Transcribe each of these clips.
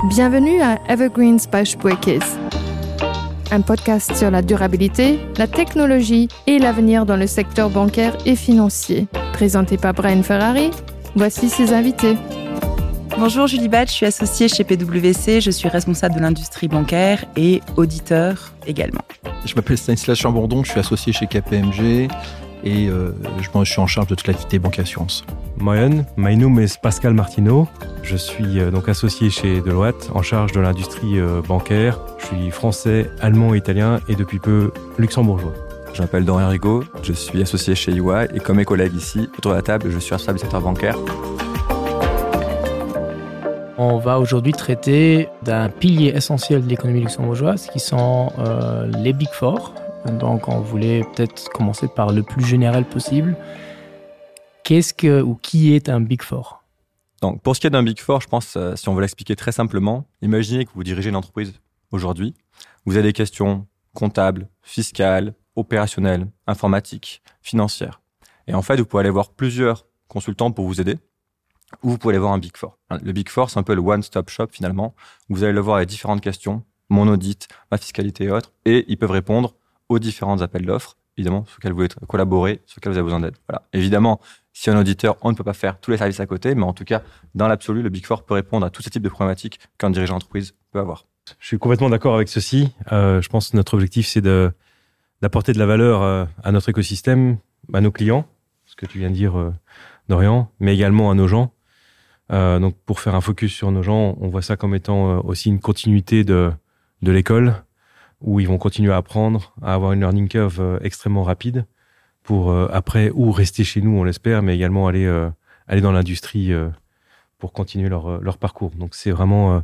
Bienvenue à Evergreens by Spuerkeess. Un podcast sur la durabilité, la technologie et l'avenir dans le secteur bancaire et financier. Présenté par Brian Ferrari, voici ses invités. Bonjour Julie Batch, je suis associée chez PwC, je suis responsable de l'industrie bancaire et auditeur également. Je m'appelle Stanislas Chambondon, je suis associé chez KPMG et euh, je, je suis en charge de toute l'activité banque assurance. Moyen, my name is Pascal Martineau. Je suis euh, donc associé chez Deloitte en charge de l'industrie euh, bancaire. Je suis français, allemand, italien et depuis peu luxembourgeois. Je m'appelle Dorian Rigaud, je suis associé chez EY et comme mes collègues ici autour de la table, je suis responsable du secteur bancaire. On va aujourd'hui traiter d'un pilier essentiel de l'économie luxembourgeoise qui sont euh, les Big Four. Donc on voulait peut-être commencer par le plus général possible. Qu'est-ce que ou qui est un Big Four? Donc pour ce qui est d'un Big Four, je pense euh, si on veut l'expliquer très simplement, imaginez que vous dirigez une entreprise aujourd'hui, vous avez des questions comptables, fiscales, opérationnelles, informatiques, financières. Et en fait, vous pouvez aller voir plusieurs consultants pour vous aider ou vous pouvez aller voir un Big Four. Le Big Four, c'est un peu le one-stop shop finalement. Vous allez le voir avec différentes questions, mon audit, ma fiscalité et autres, et ils peuvent répondre aux différents appels d'offres, évidemment, sur lesquels vous voulez collaborer, sur lesquels vous avez besoin d'aide. Voilà. Évidemment, si un auditeur, on ne peut pas faire tous les services à côté, mais en tout cas, dans l'absolu, le Big Four peut répondre à tous ces types de problématiques qu'un dirigeant d'entreprise peut avoir. Je suis complètement d'accord avec ceci. Euh, je pense que notre objectif, c'est d'apporter de, de la valeur euh, à notre écosystème, à nos clients, ce que tu viens de dire, euh, Dorian, mais également à nos gens. Euh, donc pour faire un focus sur nos gens, on voit ça comme étant euh, aussi une continuité de, de l'école où ils vont continuer à apprendre, à avoir une learning curve euh, extrêmement rapide pour euh, après ou rester chez nous, on l'espère, mais également aller, euh, aller dans l'industrie euh, pour continuer leur, euh, leur parcours. Donc c'est vraiment euh,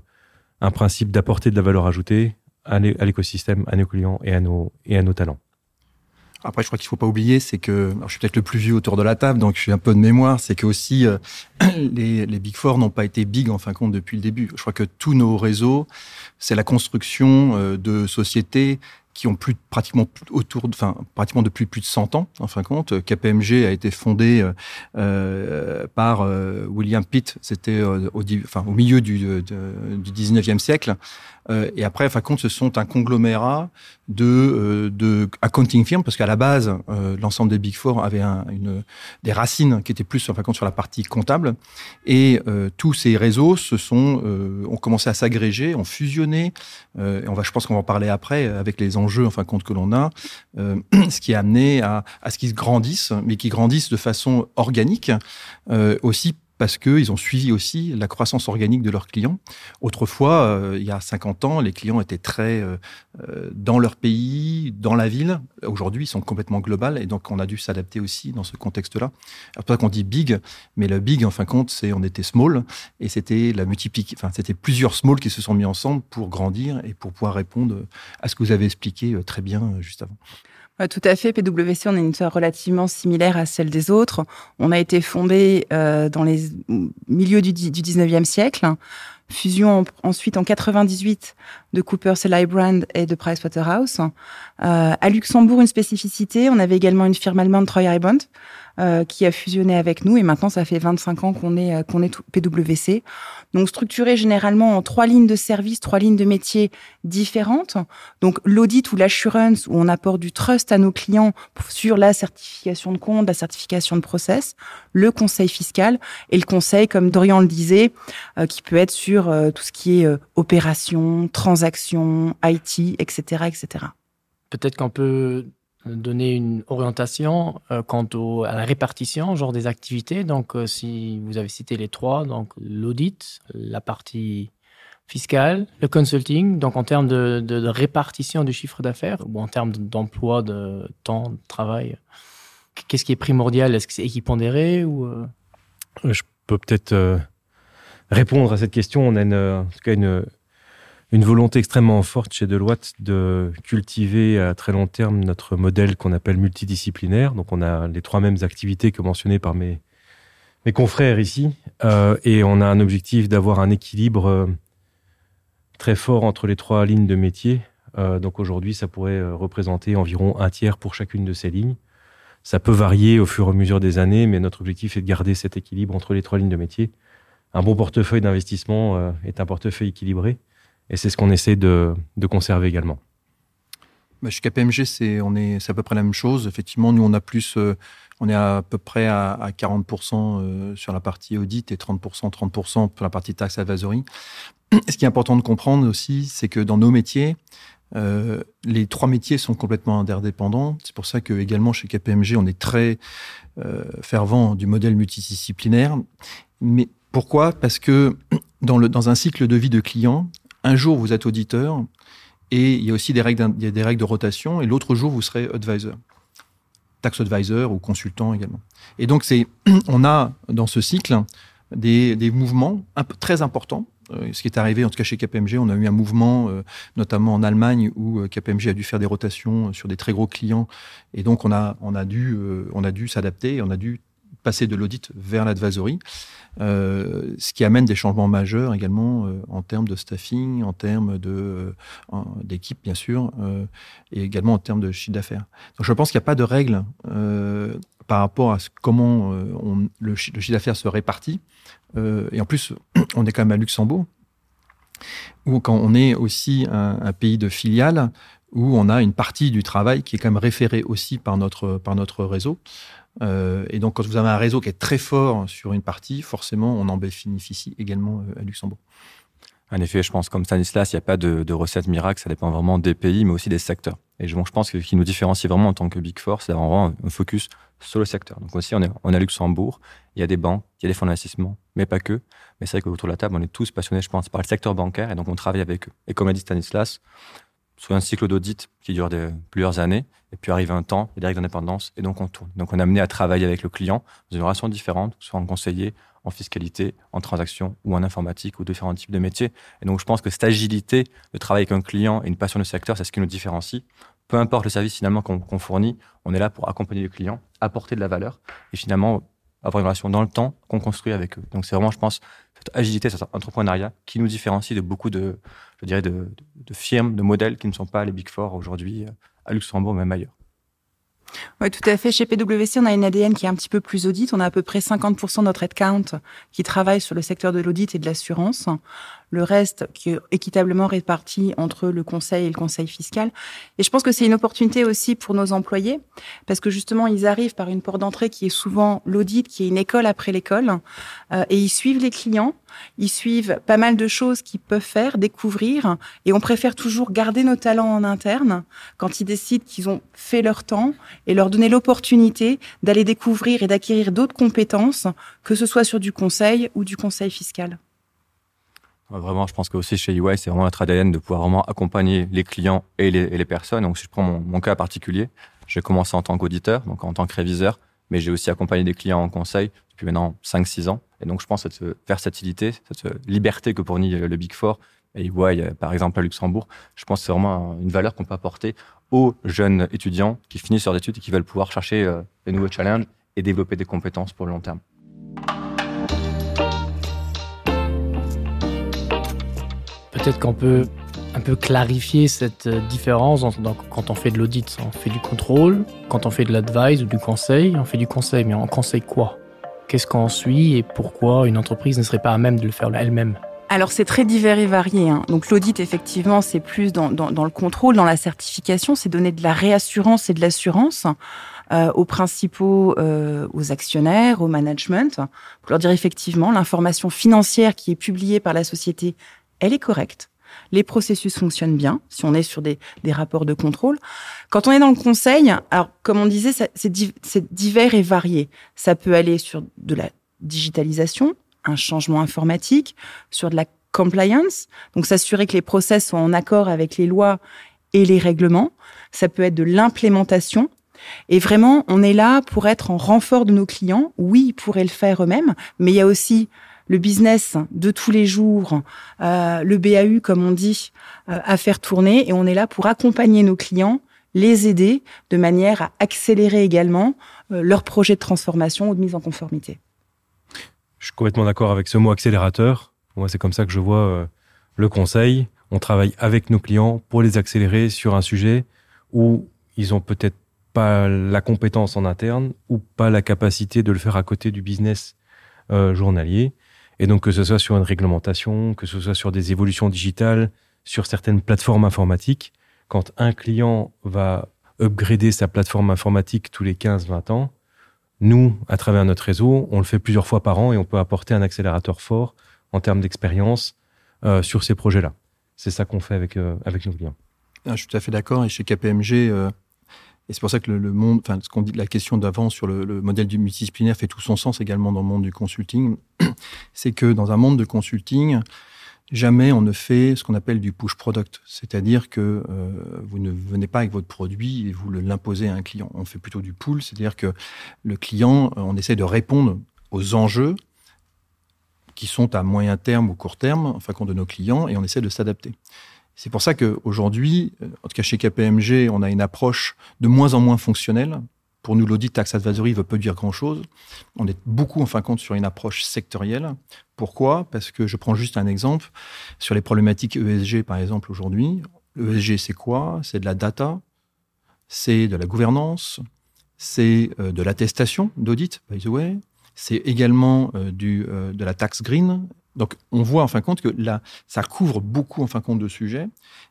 un principe d'apporter de la valeur ajoutée à l'écosystème, à nos clients et à nos, et à nos talents. Après, je crois qu'il faut pas oublier, c'est que alors, je suis peut-être le plus vieux autour de la table, donc je suis un peu de mémoire, c'est que aussi euh, les, les Big Four n'ont pas été big en fin de compte depuis le début. Je crois que tous nos réseaux, c'est la construction euh, de sociétés qui ont plus pratiquement autour enfin pratiquement depuis plus de 100 ans en fin de compte KPMG a été fondé euh, euh, par euh, William Pitt c'était euh, au enfin au milieu du, de, du 19e siècle euh, et après enfin compte ce sont un conglomérat de euh, de accounting firm parce qu'à la base euh, l'ensemble des big four avait un, une des racines qui étaient plus en fin compte sur la partie comptable et euh, tous ces réseaux se sont euh, ont commencé à s'agréger ont fusionné euh, et on va je pense qu'on va en parler après avec les enjeux en fin compte que l'on a euh, ce qui a amené à, à ce qu'ils grandissent mais qui grandissent de façon organique euh, aussi parce qu'ils ont suivi aussi la croissance organique de leurs clients. Autrefois, euh, il y a 50 ans, les clients étaient très euh, euh, dans leur pays, dans la ville. Aujourd'hui, ils sont complètement global et donc on a dû s'adapter aussi dans ce contexte-là. C'est pour ça qu'on dit big, mais le big, en fin de compte, c'est on était small et c'était la multiplique, enfin, c'était plusieurs small qui se sont mis ensemble pour grandir et pour pouvoir répondre à ce que vous avez expliqué euh, très bien euh, juste avant. Ouais, tout à fait. PwC, on a une histoire relativement similaire à celle des autres. On a été fondé euh, dans les milieux du, du 19e siècle. Fusion en, ensuite en 98 de Cooper Brand et de Pricewaterhouse. Euh, à Luxembourg, une spécificité, on avait également une firme allemande Troy Bond euh, qui a fusionné avec nous et maintenant ça fait 25 ans qu'on est, euh, qu'on est PwC. Donc structuré généralement en trois lignes de service, trois lignes de métiers différentes. Donc l'audit ou l'assurance où on apporte du trust à nos clients sur la certification de compte, la certification de process, le conseil fiscal et le conseil, comme Dorian le disait, euh, qui peut être sur euh, tout ce qui est euh, opération, transaction, IT, etc. etc. Peut-être qu'on peut donner une orientation euh, quant au, à la répartition genre des activités donc euh, si vous avez cité les trois donc l'audit la partie fiscale le consulting donc en termes de, de, de répartition du chiffre d'affaires ou en termes d'emploi de temps de travail qu'est-ce qui est primordial est-ce que c'est équipondéré ou euh je peux peut-être euh, répondre à cette question on a une, en tout cas une une volonté extrêmement forte chez Deloitte de cultiver à très long terme notre modèle qu'on appelle multidisciplinaire. Donc on a les trois mêmes activités que mentionnées par mes, mes confrères ici euh, et on a un objectif d'avoir un équilibre euh, très fort entre les trois lignes de métier. Euh, donc aujourd'hui, ça pourrait euh, représenter environ un tiers pour chacune de ces lignes. Ça peut varier au fur et à mesure des années, mais notre objectif est de garder cet équilibre entre les trois lignes de métier. un bon portefeuille d'investissement euh, est un portefeuille équilibré et c'est ce qu'on essaie de, de conserver également. Bah, chez KPMG c'est on est c'est à peu près la même chose effectivement nous on a plus euh, on est à peu près à, à 40 euh, sur la partie audit et 30 30 pour la partie taxe advisory ce qui est important de comprendre aussi c'est que dans nos métiers euh, les trois métiers sont complètement interdépendants c'est pour ça que également chez KPMG on est très euh, fervent du modèle multidisciplinaire mais pourquoi parce que dans le dans un cycle de vie de client un jour vous êtes auditeur et il y a aussi des règles il y a des règles de rotation et l'autre jour vous serez advisor tax advisor ou consultant également et donc c'est on a dans ce cycle des, des mouvements un peu très importants euh, ce qui est arrivé en tout cas chez KPMG on a eu un mouvement euh, notamment en Allemagne où euh, KPMG a dû faire des rotations sur des très gros clients et donc on a on a dû on a dû s'adapter on a dû passer de l'audit vers l'advisory euh, ce qui amène des changements majeurs également euh, en termes de staffing en termes de euh, d'équipe bien sûr euh, et également en termes de chiffre d'affaires donc je pense qu'il n'y a pas de règle euh, par rapport à ce, comment euh, on, le, le chiffre d'affaires se répartit euh, et en plus on est quand même à Luxembourg ou quand on est aussi un, un pays de filiale où on a une partie du travail qui est quand même référée aussi par notre par notre réseau euh, et donc quand vous avez un réseau qui est très fort sur une partie forcément on en bénéficie également euh, à Luxembourg. En effet, je pense comme Stanislas, il n'y a pas de, de recette miracle, ça dépend vraiment des pays, mais aussi des secteurs. Et je, bon, je pense que ce qui nous différencie vraiment en tant que Big Four, c'est d'avoir vraiment un focus sur le secteur. Donc aussi, on est, on est à Luxembourg, il y a des banques, il y a des fonds d'investissement, mais pas que. Mais c'est vrai qu'autour de la table, on est tous passionnés, je pense, par le secteur bancaire, et donc on travaille avec eux. Et comme a dit Stanislas, sur un cycle d'audit qui dure de, plusieurs années, et puis arrive un temps, il y a des règles d'indépendance, et donc on tourne. Donc on est amené à travailler avec le client dans une relation différente, soit en conseiller, en fiscalité, en transaction ou en informatique ou différents types de métiers. Et donc je pense que cette agilité de travailler avec un client et une passion du secteur, c'est ce qui nous différencie. Peu importe le service finalement qu'on qu fournit, on est là pour accompagner le client, apporter de la valeur et finalement avoir une relation dans le temps qu'on construit avec eux. Donc c'est vraiment, je pense, cette agilité, cet entrepreneuriat qui nous différencie de beaucoup de, je dirais, de, de, de firmes, de modèles qui ne sont pas les Big Four aujourd'hui à Luxembourg, même ailleurs. Oui, tout à fait. Chez PwC, on a une ADN qui est un petit peu plus audite. On a à peu près 50% de notre headcount qui travaille sur le secteur de l'audit et de l'assurance. Le reste qui est équitablement réparti entre le conseil et le conseil fiscal. Et je pense que c'est une opportunité aussi pour nos employés parce que justement, ils arrivent par une porte d'entrée qui est souvent l'audit, qui est une école après l'école euh, et ils suivent les clients, ils suivent pas mal de choses qu'ils peuvent faire, découvrir et on préfère toujours garder nos talents en interne quand ils décident qu'ils ont fait leur temps et leur donner l'opportunité d'aller découvrir et d'acquérir d'autres compétences, que ce soit sur du conseil ou du conseil fiscal. Vraiment, je pense que aussi chez EY, c'est vraiment notre ADN de pouvoir vraiment accompagner les clients et les, et les personnes. Donc, si je prends mon, mon cas particulier, j'ai commencé en tant qu'auditeur, donc en tant que réviseur, mais j'ai aussi accompagné des clients en conseil depuis maintenant 5-6 ans. Et donc, je pense cette versatilité, cette liberté que fournit le Big Four et EY, par exemple, à Luxembourg, je pense que c'est vraiment une valeur qu'on peut apporter aux jeunes étudiants qui finissent leurs études et qui veulent pouvoir chercher euh, des nouveaux challenges et développer des compétences pour le long terme. Peut-être qu'on peut un peu clarifier cette euh, différence entre, donc, quand on fait de l'audit, on fait du contrôle, quand on fait de l'advice ou du conseil, on fait du conseil, mais on conseille quoi Qu'est-ce qu'on suit et pourquoi une entreprise ne serait pas à même de le faire elle-même Alors c'est très divers et varié. Hein. Donc l'audit effectivement c'est plus dans, dans, dans le contrôle, dans la certification, c'est donner de la réassurance et de l'assurance euh, aux principaux euh, aux actionnaires, au management, pour leur dire effectivement l'information financière qui est publiée par la société, elle est correcte. Les processus fonctionnent bien si on est sur des, des rapports de contrôle. Quand on est dans le conseil, alors comme on disait, c'est di divers et varié. Ça peut aller sur de la digitalisation, un changement informatique, sur de la compliance, donc s'assurer que les process sont en accord avec les lois et les règlements. Ça peut être de l'implémentation. Et vraiment, on est là pour être en renfort de nos clients. Oui, ils pourraient le faire eux-mêmes, mais il y a aussi le business de tous les jours, euh, le BAU, comme on dit, euh, à faire tourner. Et on est là pour accompagner nos clients, les aider de manière à accélérer également euh, leur projet de transformation ou de mise en conformité. Je suis complètement d'accord avec ce mot accélérateur. Moi, c'est comme ça que je vois euh, le conseil. On travaille avec nos clients pour les accélérer sur un sujet où ils ont peut-être pas la compétence en interne ou pas la capacité de le faire à côté du business euh, journalier. Et donc que ce soit sur une réglementation, que ce soit sur des évolutions digitales, sur certaines plateformes informatiques, quand un client va upgrader sa plateforme informatique tous les 15-20 ans, nous, à travers notre réseau, on le fait plusieurs fois par an et on peut apporter un accélérateur fort en termes d'expérience euh, sur ces projets-là. C'est ça qu'on fait avec, euh, avec nos clients. Ah, je suis tout à fait d'accord et chez KPMG, euh, et c'est pour ça que le, le monde enfin ce qu'on dit la question d'avant sur le, le modèle du multidisciplinaire fait tout son sens également dans le monde du consulting c'est que dans un monde de consulting jamais on ne fait ce qu'on appelle du push product c'est à dire que euh, vous ne venez pas avec votre produit et vous l'imposez à un client on fait plutôt du pull c'est à dire que le client euh, on essaie de répondre aux enjeux qui sont à moyen terme ou court terme enfin compte de nos clients et on essaie de s'adapter c'est pour ça que aujourd'hui euh, en tout cas chez KPMG on a une approche de moins en moins fonctionnelle pour nous l'audit tax advisory veut peu dire grand chose on est beaucoup en fin de compte sur une approche sectorielle pourquoi parce que je prends juste un exemple sur les problématiques ESG par exemple aujourd'hui ESG c'est quoi c'est de la data c'est de la gouvernance c'est euh, de l'attestation d'audit by the way c'est également euh, du euh, de la taxe green Donc on voit en fin de compte que là ça couvre beaucoup en fin de compte de sujets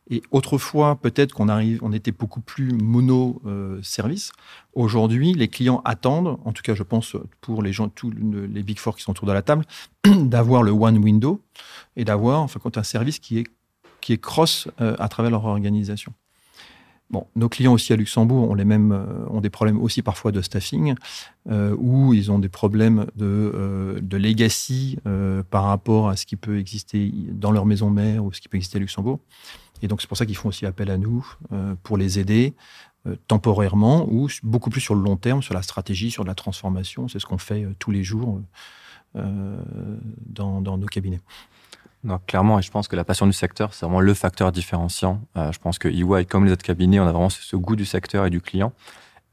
et autrefois peut-être qu'on arrive on était beaucoup plus mono euh, service aujourd'hui les clients attendent en tout cas je pense pour les gens tous les big four qui sont autour de la table d'avoir le one window et d'avoir en fin de compte un service qui est qui est cross euh, à travers leur organisation. Bon, nos clients aussi à Luxembourg ont les mêmes euh, ont des problèmes aussi parfois de staffing euh, où ils ont des problèmes de, euh, de legacy euh, par rapport à ce qui peut exister dans leur maison mère ou ce qui peut exister à Luxembourg. Et donc c'est pour ça qu'ils font aussi appel à nous euh, pour les aider euh, temporairement ou beaucoup plus sur le long terme, sur la stratégie, sur la transformation, c'est ce qu'on fait euh, tous les jours euh, dans, dans nos cabinets. Non, clairement, et je pense que la passion du secteur, c'est vraiment le facteur différenciant. Euh, je pense que EY, comme les autres cabinets, on a vraiment ce, ce goût du secteur et du client.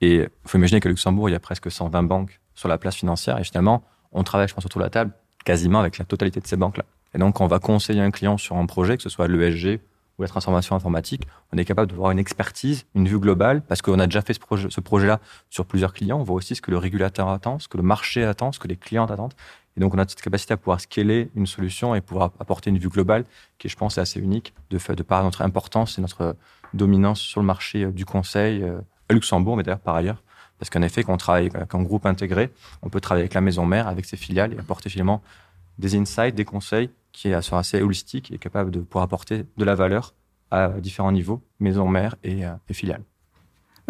Et il faut imaginer qu'à Luxembourg, il y a presque 120 banques sur la place financière. Et finalement, on travaille, je pense, autour de la table quasiment avec la totalité de ces banques-là. Et donc, quand on va conseiller un client sur un projet, que ce soit l'ESG ou la transformation informatique, on est capable de voir une expertise, une vue globale, parce qu'on a déjà fait ce projet, ce projet-là sur plusieurs clients. On voit aussi ce que le régulateur attend, ce que le marché attend, ce que les clients attendent. Et donc, on a cette capacité à pouvoir scaler une solution et pouvoir apporter une vue globale qui, je pense, est assez unique de, fait, de par notre importance et notre dominance sur le marché euh, du conseil euh, à Luxembourg, mais d'ailleurs par ailleurs. Parce qu'en effet, quand on travaille avec un groupe intégré, on peut travailler avec la maison mère, avec ses filiales et apporter finalement des insights, des conseils qui sont assez holistiques et capables de pouvoir apporter de la valeur à différents niveaux, maison mère et, euh, et filiales.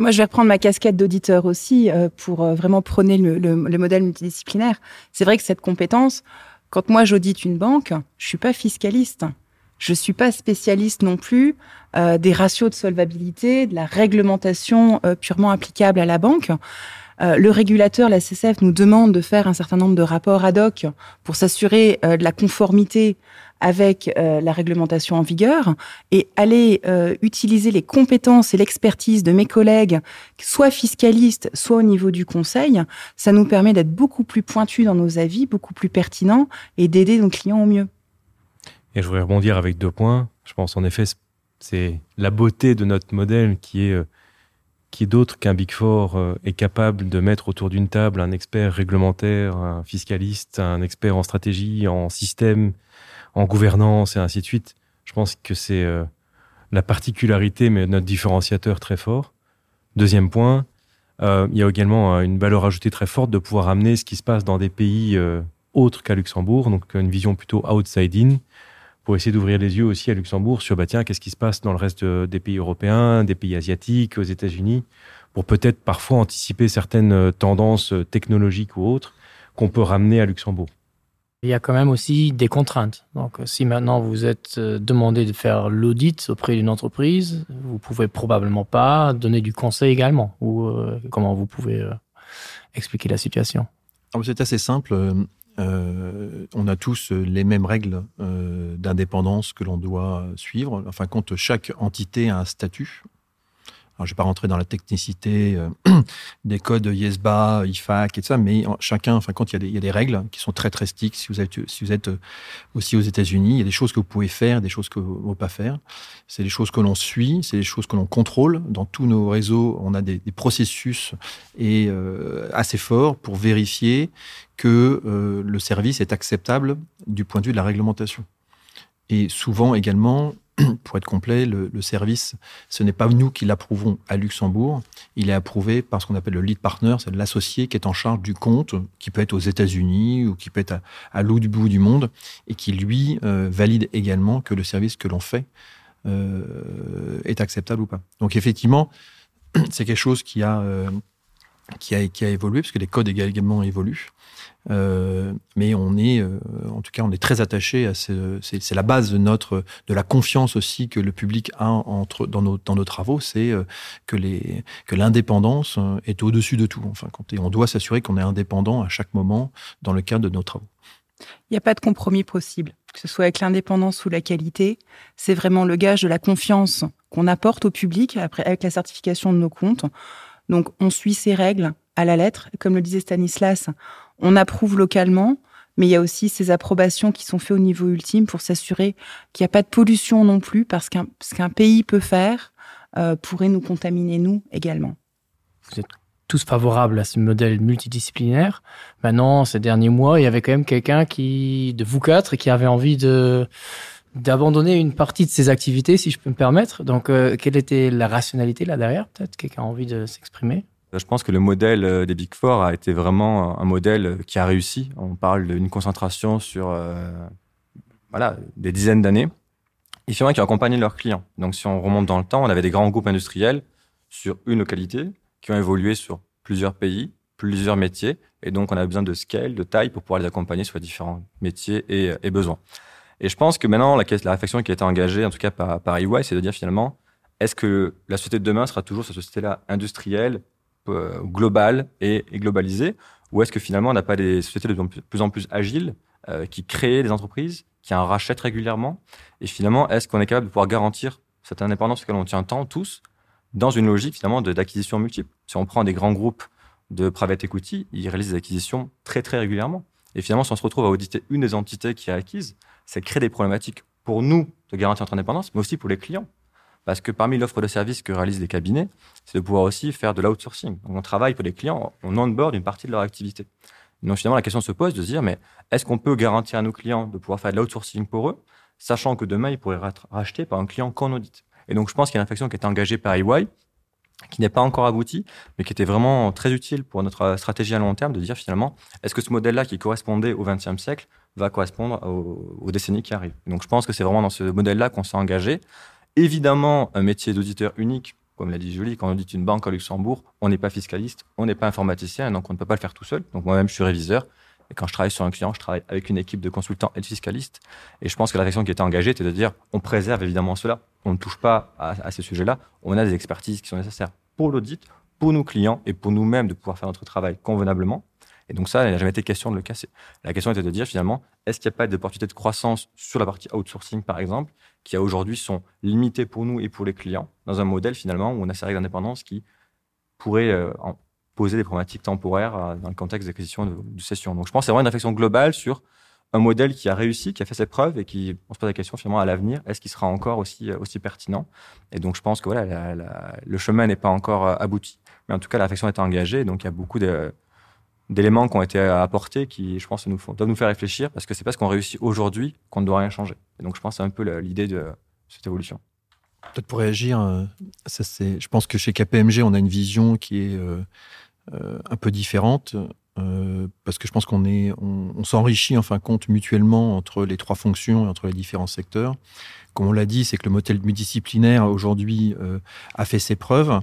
Moi, je vais reprendre ma casquette d'auditeur aussi euh, pour euh, vraiment prôner le, le, le modèle multidisciplinaire. C'est vrai que cette compétence, quand moi j'audite une banque, je suis pas fiscaliste. Je suis pas spécialiste non plus euh, des ratios de solvabilité, de la réglementation euh, purement applicable à la banque. Euh, le régulateur, la CCF, nous demande de faire un certain nombre de rapports ad hoc pour s'assurer euh, de la conformité avec euh, la réglementation en vigueur et aller euh, utiliser les compétences et l'expertise de mes collègues, soit fiscalistes, soit au niveau du conseil, ça nous permet d'être beaucoup plus pointus dans nos avis, beaucoup plus pertinents et d'aider nos clients au mieux. Et je voudrais rebondir avec deux points. Je pense en effet, c'est la beauté de notre modèle qui est euh, qui d'autre qu'un Big Four euh, est capable de mettre autour d'une table un expert réglementaire, un fiscaliste, un expert en stratégie, en système, en gouvernance et ainsi de suite. Je pense que c'est euh, la particularité, mais notre différenciateur très fort. Deuxième point, euh, il y a également euh, une valeur ajoutée très forte de pouvoir amener ce qui se passe dans des pays euh, autres qu'à Luxembourg, donc une vision plutôt outside in pour essayer d'ouvrir les yeux aussi à Luxembourg sur bah tiens qu'est-ce qui se passe dans le reste euh, des pays européens, des pays asiatiques, aux États-Unis, pour peut-être parfois anticiper certaines euh, tendances euh, technologiques ou autres qu'on peut ramener à Luxembourg. Il y a quand même aussi des contraintes. Donc si maintenant vous êtes demandé de faire l'audit auprès d'une entreprise, vous pouvez probablement pas donner du conseil également ou euh, comment vous pouvez euh, expliquer la situation. Ah, c'est assez simple. Euh, on a tous les mêmes règles euh, d'indépendance que l'on doit suivre. Enfin, compte chaque entité a un statut. Alors, je vais pas rentrer dans la technicité euh, des codes ISBA, IFAC et tout ça, mais chacun, enfin, quand il y, a des, il y a des règles qui sont très très strictes, si vous êtes, si vous êtes euh, aussi aux États-Unis, il y a des choses que vous pouvez faire, des choses que vous ne pouvez pas faire. C'est des choses que l'on suit, c'est des choses que l'on contrôle. Dans tous nos réseaux, on a des, des processus et, euh, assez forts pour vérifier que euh, le service est acceptable du point de vue de la réglementation. Et souvent également, pour être complet, le, le service, ce n'est pas nous qui l'approuvons à Luxembourg, il est approuvé par ce qu'on appelle le lead partner, c'est l'associé qui est en charge du compte, qui peut être aux États-Unis ou qui peut être à, à l'autre bout du monde et qui lui euh, valide également que le service que l'on fait euh, est acceptable ou pas. Donc effectivement, c'est quelque chose qui a euh, qui a, qui a évolué parce que les codes également évoluent. Euh, mais on est euh, en tout cas on est très attaché à ce c'est la base de notre de la confiance aussi que le public a entre dans nos dans nos travaux c'est euh, que les que l'indépendance euh, est au dessus de tout enfin quand et on doit s'assurer qu'on est indépendant à chaque moment dans le cadre de nos travaux il n'y a pas de compromis possible que ce soit avec l'indépendance ou la qualité c'est vraiment le gage de la confiance qu'on apporte au public après avec la certification de nos comptes donc on suit ces règles à la lettre comme le disait Stanislas on approuve localement mais il y a aussi ces approbations qui sont faites au niveau ultime pour s'assurer qu'il n'y a pas de pollution non plus parce qu'un ce qu'un pays peut faire euh, pourrait nous contaminer nous également vous êtes tous favorables à ce modèle multidisciplinaire maintenant ces derniers mois il y avait quand même quelqu'un qui de vous quatre qui avait envie de d'abandonner une partie de ses activités si je peux me permettre donc euh, quelle était la rationalité là derrière peut-être quelqu'un a envie de s'exprimer Je pense que le modèle euh, des Big Four a été vraiment un modèle qui a réussi. On parle d'une concentration sur euh, voilà, des dizaines d'années et finalement qui ont accompagné leurs clients. Donc si on remonte dans le temps, on avait des grands groupes industriels sur une localité qui ont évolué sur plusieurs pays, plusieurs métiers et donc on a besoin de scale, de taille pour pouvoir les accompagner sur différents métiers et, et besoins. Et je pense que maintenant la, la réflexion qui a été engagée en tout cas par, par EY, c'est de dire finalement est-ce que la société de demain sera toujours cette société là industrielle, euh, globale et, et globalisée ou est-ce que finalement on n'a pas des sociétés de plus en plus agiles euh, qui créent des entreprises, qui en rachètent régulièrement et finalement est-ce qu'on est capable de pouvoir garantir cette indépendance auquel on tient tant tous dans une logique finalement d'acquisition multiple. Si on prend des grands groupes de private equity, ils réalisent des acquisitions très très régulièrement. Et finalement, si on se retrouve à auditer une des entités qui est acquise, ça crée des problématiques pour nous de garantir notre indépendance, mais aussi pour les clients. Parce que parmi l'offre de services que réalisent les cabinets, c'est de pouvoir aussi faire de l'outsourcing. Donc on travaille pour les clients, on onboard une partie de leur activité. Donc finalement, la question se pose de se dire, mais est-ce qu'on peut garantir à nos clients de pouvoir faire de l'outsourcing pour eux, sachant que demain, ils pourraient être rachetés par un client qu'on audite Et donc je pense qu'il y a une infection qui est engagée par EY, qui n'est pas encore aboutie, mais qui était vraiment très utile pour notre stratégie à long terme, de dire finalement, est-ce que ce modèle-là qui correspondait au XXe siècle va correspondre aux, aux décennies qui arrivent. Donc je pense que c'est vraiment dans ce modèle-là qu'on s'est engagé. Évidemment, un métier d'auditeur unique, comme l'a dit Julie, quand on audite une banque à Luxembourg, on n'est pas fiscaliste, on n'est pas informaticien, donc on ne peut pas le faire tout seul. Donc moi-même, je suis réviseur. Et quand je travaille sur un client, je travaille avec une équipe de consultants et de fiscalistes. Et je pense que la réflexion qui était engagée était de dire on préserve évidemment cela, on ne touche pas à, à ces sujets-là, on a des expertises qui sont nécessaires pour l'audit, pour nos clients et pour nous-mêmes de pouvoir faire notre travail convenablement. Et donc ça, il n'a jamais été question de le casser. La question était de dire finalement, est-ce qu'il n'y a pas d'opportunité de croissance sur la partie outsourcing, par exemple, qui a aujourd'hui sont limitées pour nous et pour les clients, dans un modèle finalement où on a ces règles d'indépendance qui pourraient euh, en poser des problématiques temporaires euh, dans le contexte d'acquisition de, de session. Donc je pense que c'est vraiment une réflexion globale sur un modèle qui a réussi, qui a fait ses preuves et qui, on se pose la question finalement à l'avenir, est-ce qu'il sera encore aussi, euh, aussi pertinent Et donc je pense que voilà, la, la, le chemin n'est pas encore euh, abouti, mais en tout cas la réflexion est engagée, donc il y a beaucoup de d'éléments qui ont été apportés qui, je pense, nous font, doivent nous faire réfléchir parce que c'est parce qu'on réussit aujourd'hui qu'on ne doit rien changer. Et donc, je pense c'est un peu l'idée de cette évolution. Peut-être pour réagir, euh, ça c'est, je pense que chez KPMG, on a une vision qui est euh, euh, un peu différente euh, parce que je pense qu'on est on, on s'enrichit en fin de compte mutuellement entre les trois fonctions et entre les différents secteurs. Comme on l'a dit, c'est que le modèle multidisciplinaire aujourd'hui euh, a fait ses preuves.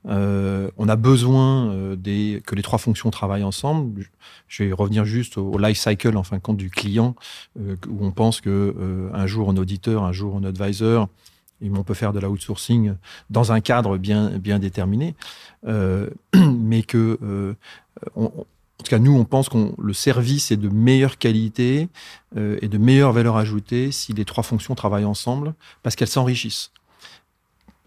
Euh, on a besoin euh, des, que les trois fonctions travaillent ensemble. Je vais revenir juste au, au life cycle en fin de compte du client euh, où on pense que euh, un jour un auditeur, un jour un advisor, et on peut faire de l'outsourcing dans un cadre bien, bien déterminé, euh, mais que euh, on, en tout cas nous on pense qu'on le service est de meilleure qualité euh, et de meilleure valeur ajoutée si les trois fonctions travaillent ensemble parce qu'elles s'enrichissent.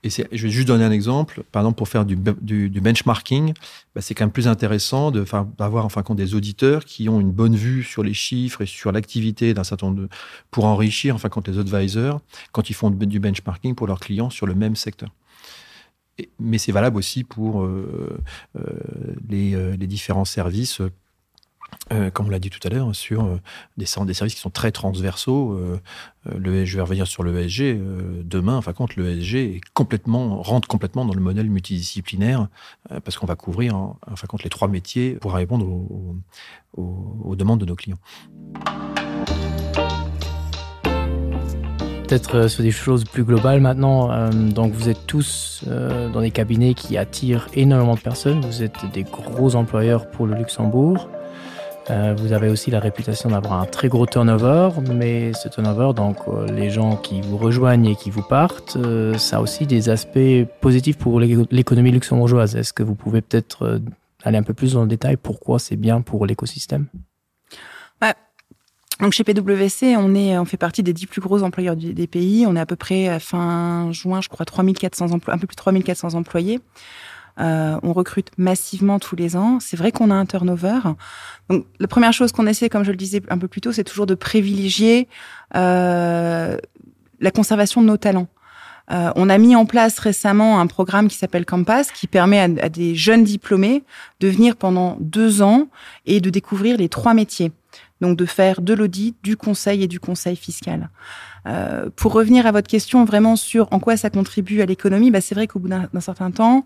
Et je vais juste donner un exemple. Par exemple, pour faire du, du, du benchmarking, bah, c'est quand même plus intéressant d'avoir en fin de compte des auditeurs qui ont une bonne vue sur les chiffres et sur l'activité d'un certain nombre de pour enrichir en fin de compte les advisors quand ils font du benchmarking pour leurs clients sur le même secteur. Et, mais c'est valable aussi pour euh, euh, les, euh, les différents services euh, comme on l'a dit tout à l'heure, sur euh, des, des services qui sont très transversaux. Euh, euh le, je vais revenir sur l'ESG euh, demain. Enfin, compte l'ESG est complètement rentre complètement dans le modèle multidisciplinaire euh, parce qu'on va couvrir en, enfin compte les trois métiers pour répondre aux, aux, aux demandes de nos clients. Peut-être euh, sur des choses plus globales maintenant. Euh, donc vous êtes tous euh, dans des cabinets qui attirent énormément de personnes. Vous êtes des gros employeurs pour le Luxembourg. Euh, vous avez aussi la réputation d'avoir un très gros turnover, mais ce turnover, donc euh, les gens qui vous rejoignent et qui vous partent, euh, ça a aussi des aspects positifs pour l'économie luxembourgeoise. Est-ce que vous pouvez peut-être euh, aller un peu plus dans le détail pourquoi c'est bien pour l'écosystème bah, Donc chez PwC, on, est, on fait partie des dix plus gros employeurs du, des pays. On est à peu près à fin juin, je crois, 3400 emplois, un peu plus de 3400 employés. Euh, on recrute massivement tous les ans. C'est vrai qu'on a un turnover. Donc, la première chose qu'on essaie, comme je le disais un peu plus tôt, c'est toujours de privilégier euh, la conservation de nos talents. Euh, on a mis en place récemment un programme qui s'appelle Campus, qui permet à, à des jeunes diplômés de venir pendant deux ans et de découvrir les trois métiers. Donc de faire de l'audit, du conseil et du conseil fiscal. Euh, pour revenir à votre question vraiment sur en quoi ça contribue à l'économie, bah c'est vrai qu'au bout d'un certain temps,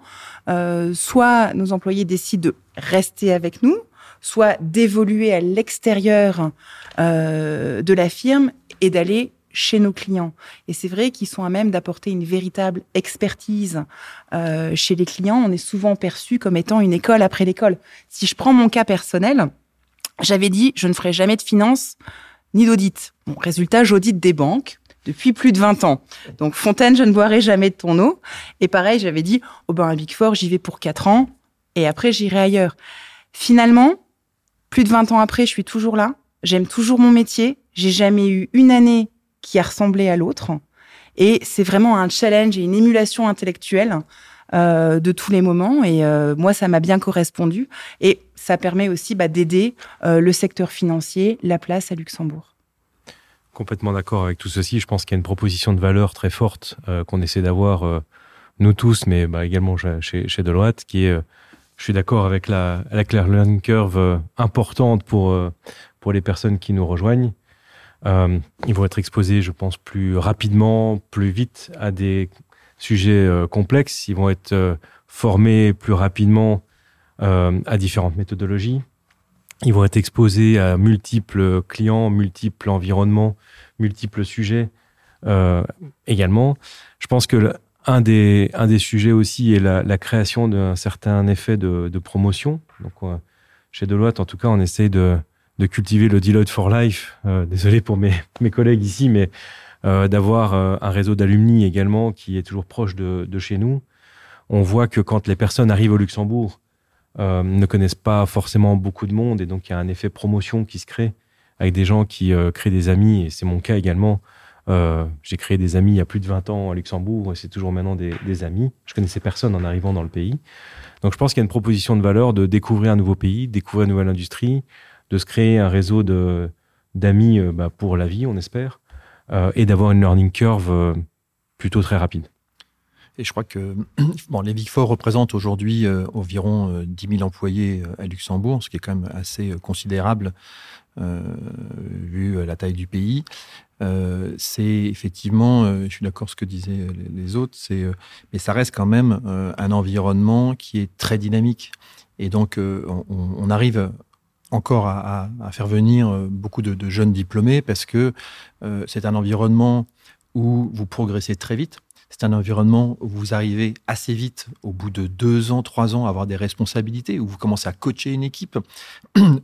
euh, soit nos employés décident de rester avec nous, soit d'évoluer à l'extérieur euh, de la firme et d'aller chez nos clients. Et c'est vrai qu'ils sont à même d'apporter une véritable expertise euh, chez les clients. On est souvent perçu comme étant une école après l'école. Si je prends mon cas personnel, j'avais dit je ne ferai jamais de finance ni d'audit. Bon, résultat, j'audite des banques depuis plus de 20 ans. Donc Fontaine, je ne boirai jamais de ton eau. Et pareil, j'avais dit oh ben un Big Four, j'y vais pour 4 ans et après j'irai ailleurs. Finalement, plus de 20 ans après, je suis toujours là. J'aime toujours mon métier. J'ai jamais eu une année qui a ressemblé à l'autre. Et c'est vraiment un challenge et une émulation intellectuelle euh, de tous les moments. Et euh, moi, ça m'a bien correspondu. Et ça permet aussi bah, d'aider euh, le secteur financier, la place à Luxembourg. Complètement d'accord avec tout ceci. Je pense qu'il y a une proposition de valeur très forte euh, qu'on essaie d'avoir euh, nous tous, mais bah, également chez, chez Deloitte, qui est, euh, je suis d'accord avec la, la claire learning curve euh, importante pour, euh, pour les personnes qui nous rejoignent. Euh, ils vont être exposés, je pense, plus rapidement, plus vite à des sujets euh, complexes. Ils vont être euh, formés plus rapidement euh, à différentes méthodologies. Ils vont être exposés à multiples clients, multiples environnements, multiples sujets euh, également. Je pense que le, un, des, un des sujets aussi est la, la création d'un certain effet de, de promotion. Donc, euh, chez Deloitte, en tout cas, on essaye de, de cultiver le Deloitte for Life. Euh, désolé pour mes, mes collègues ici, mais euh, d'avoir euh, un réseau d'alumni également qui est toujours proche de, de chez nous. On voit que quand les personnes arrivent au Luxembourg, euh, ne connaissent pas forcément beaucoup de monde et donc il y a un effet promotion qui se crée avec des gens qui euh, créent des amis et c'est mon cas également. Euh, j'ai créé des amis il y a plus de 20 ans à Luxembourg et c'est toujours maintenant des, des amis. Je connaissais personne en arrivant dans le pays. Donc je pense qu'il y a une proposition de valeur de découvrir un nouveau pays, découvrir une nouvelle industrie, de se créer un réseau d'amis euh, bah, pour la vie, on espère, euh, et d'avoir une learning curve euh, plutôt très rapide. Et je crois que bon, les Big Four représentent aujourd'hui euh, environ euh, 10 000 employés euh, à Luxembourg, ce qui est quand même assez euh, considérable euh, vu euh, la taille du pays. Euh, c'est effectivement, euh, je suis d'accord ce que disaient les autres, c'est, euh, mais ça reste quand même euh, un environnement qui est très dynamique. Et donc, euh, on, on arrive encore à, à, à faire venir euh, beaucoup de, de jeunes diplômés parce que euh, c'est un environnement où vous progressez très vite. C'est un environnement où vous arrivez assez vite, au bout de deux ans, trois ans, à avoir des responsabilités, où vous commencez à coacher une équipe.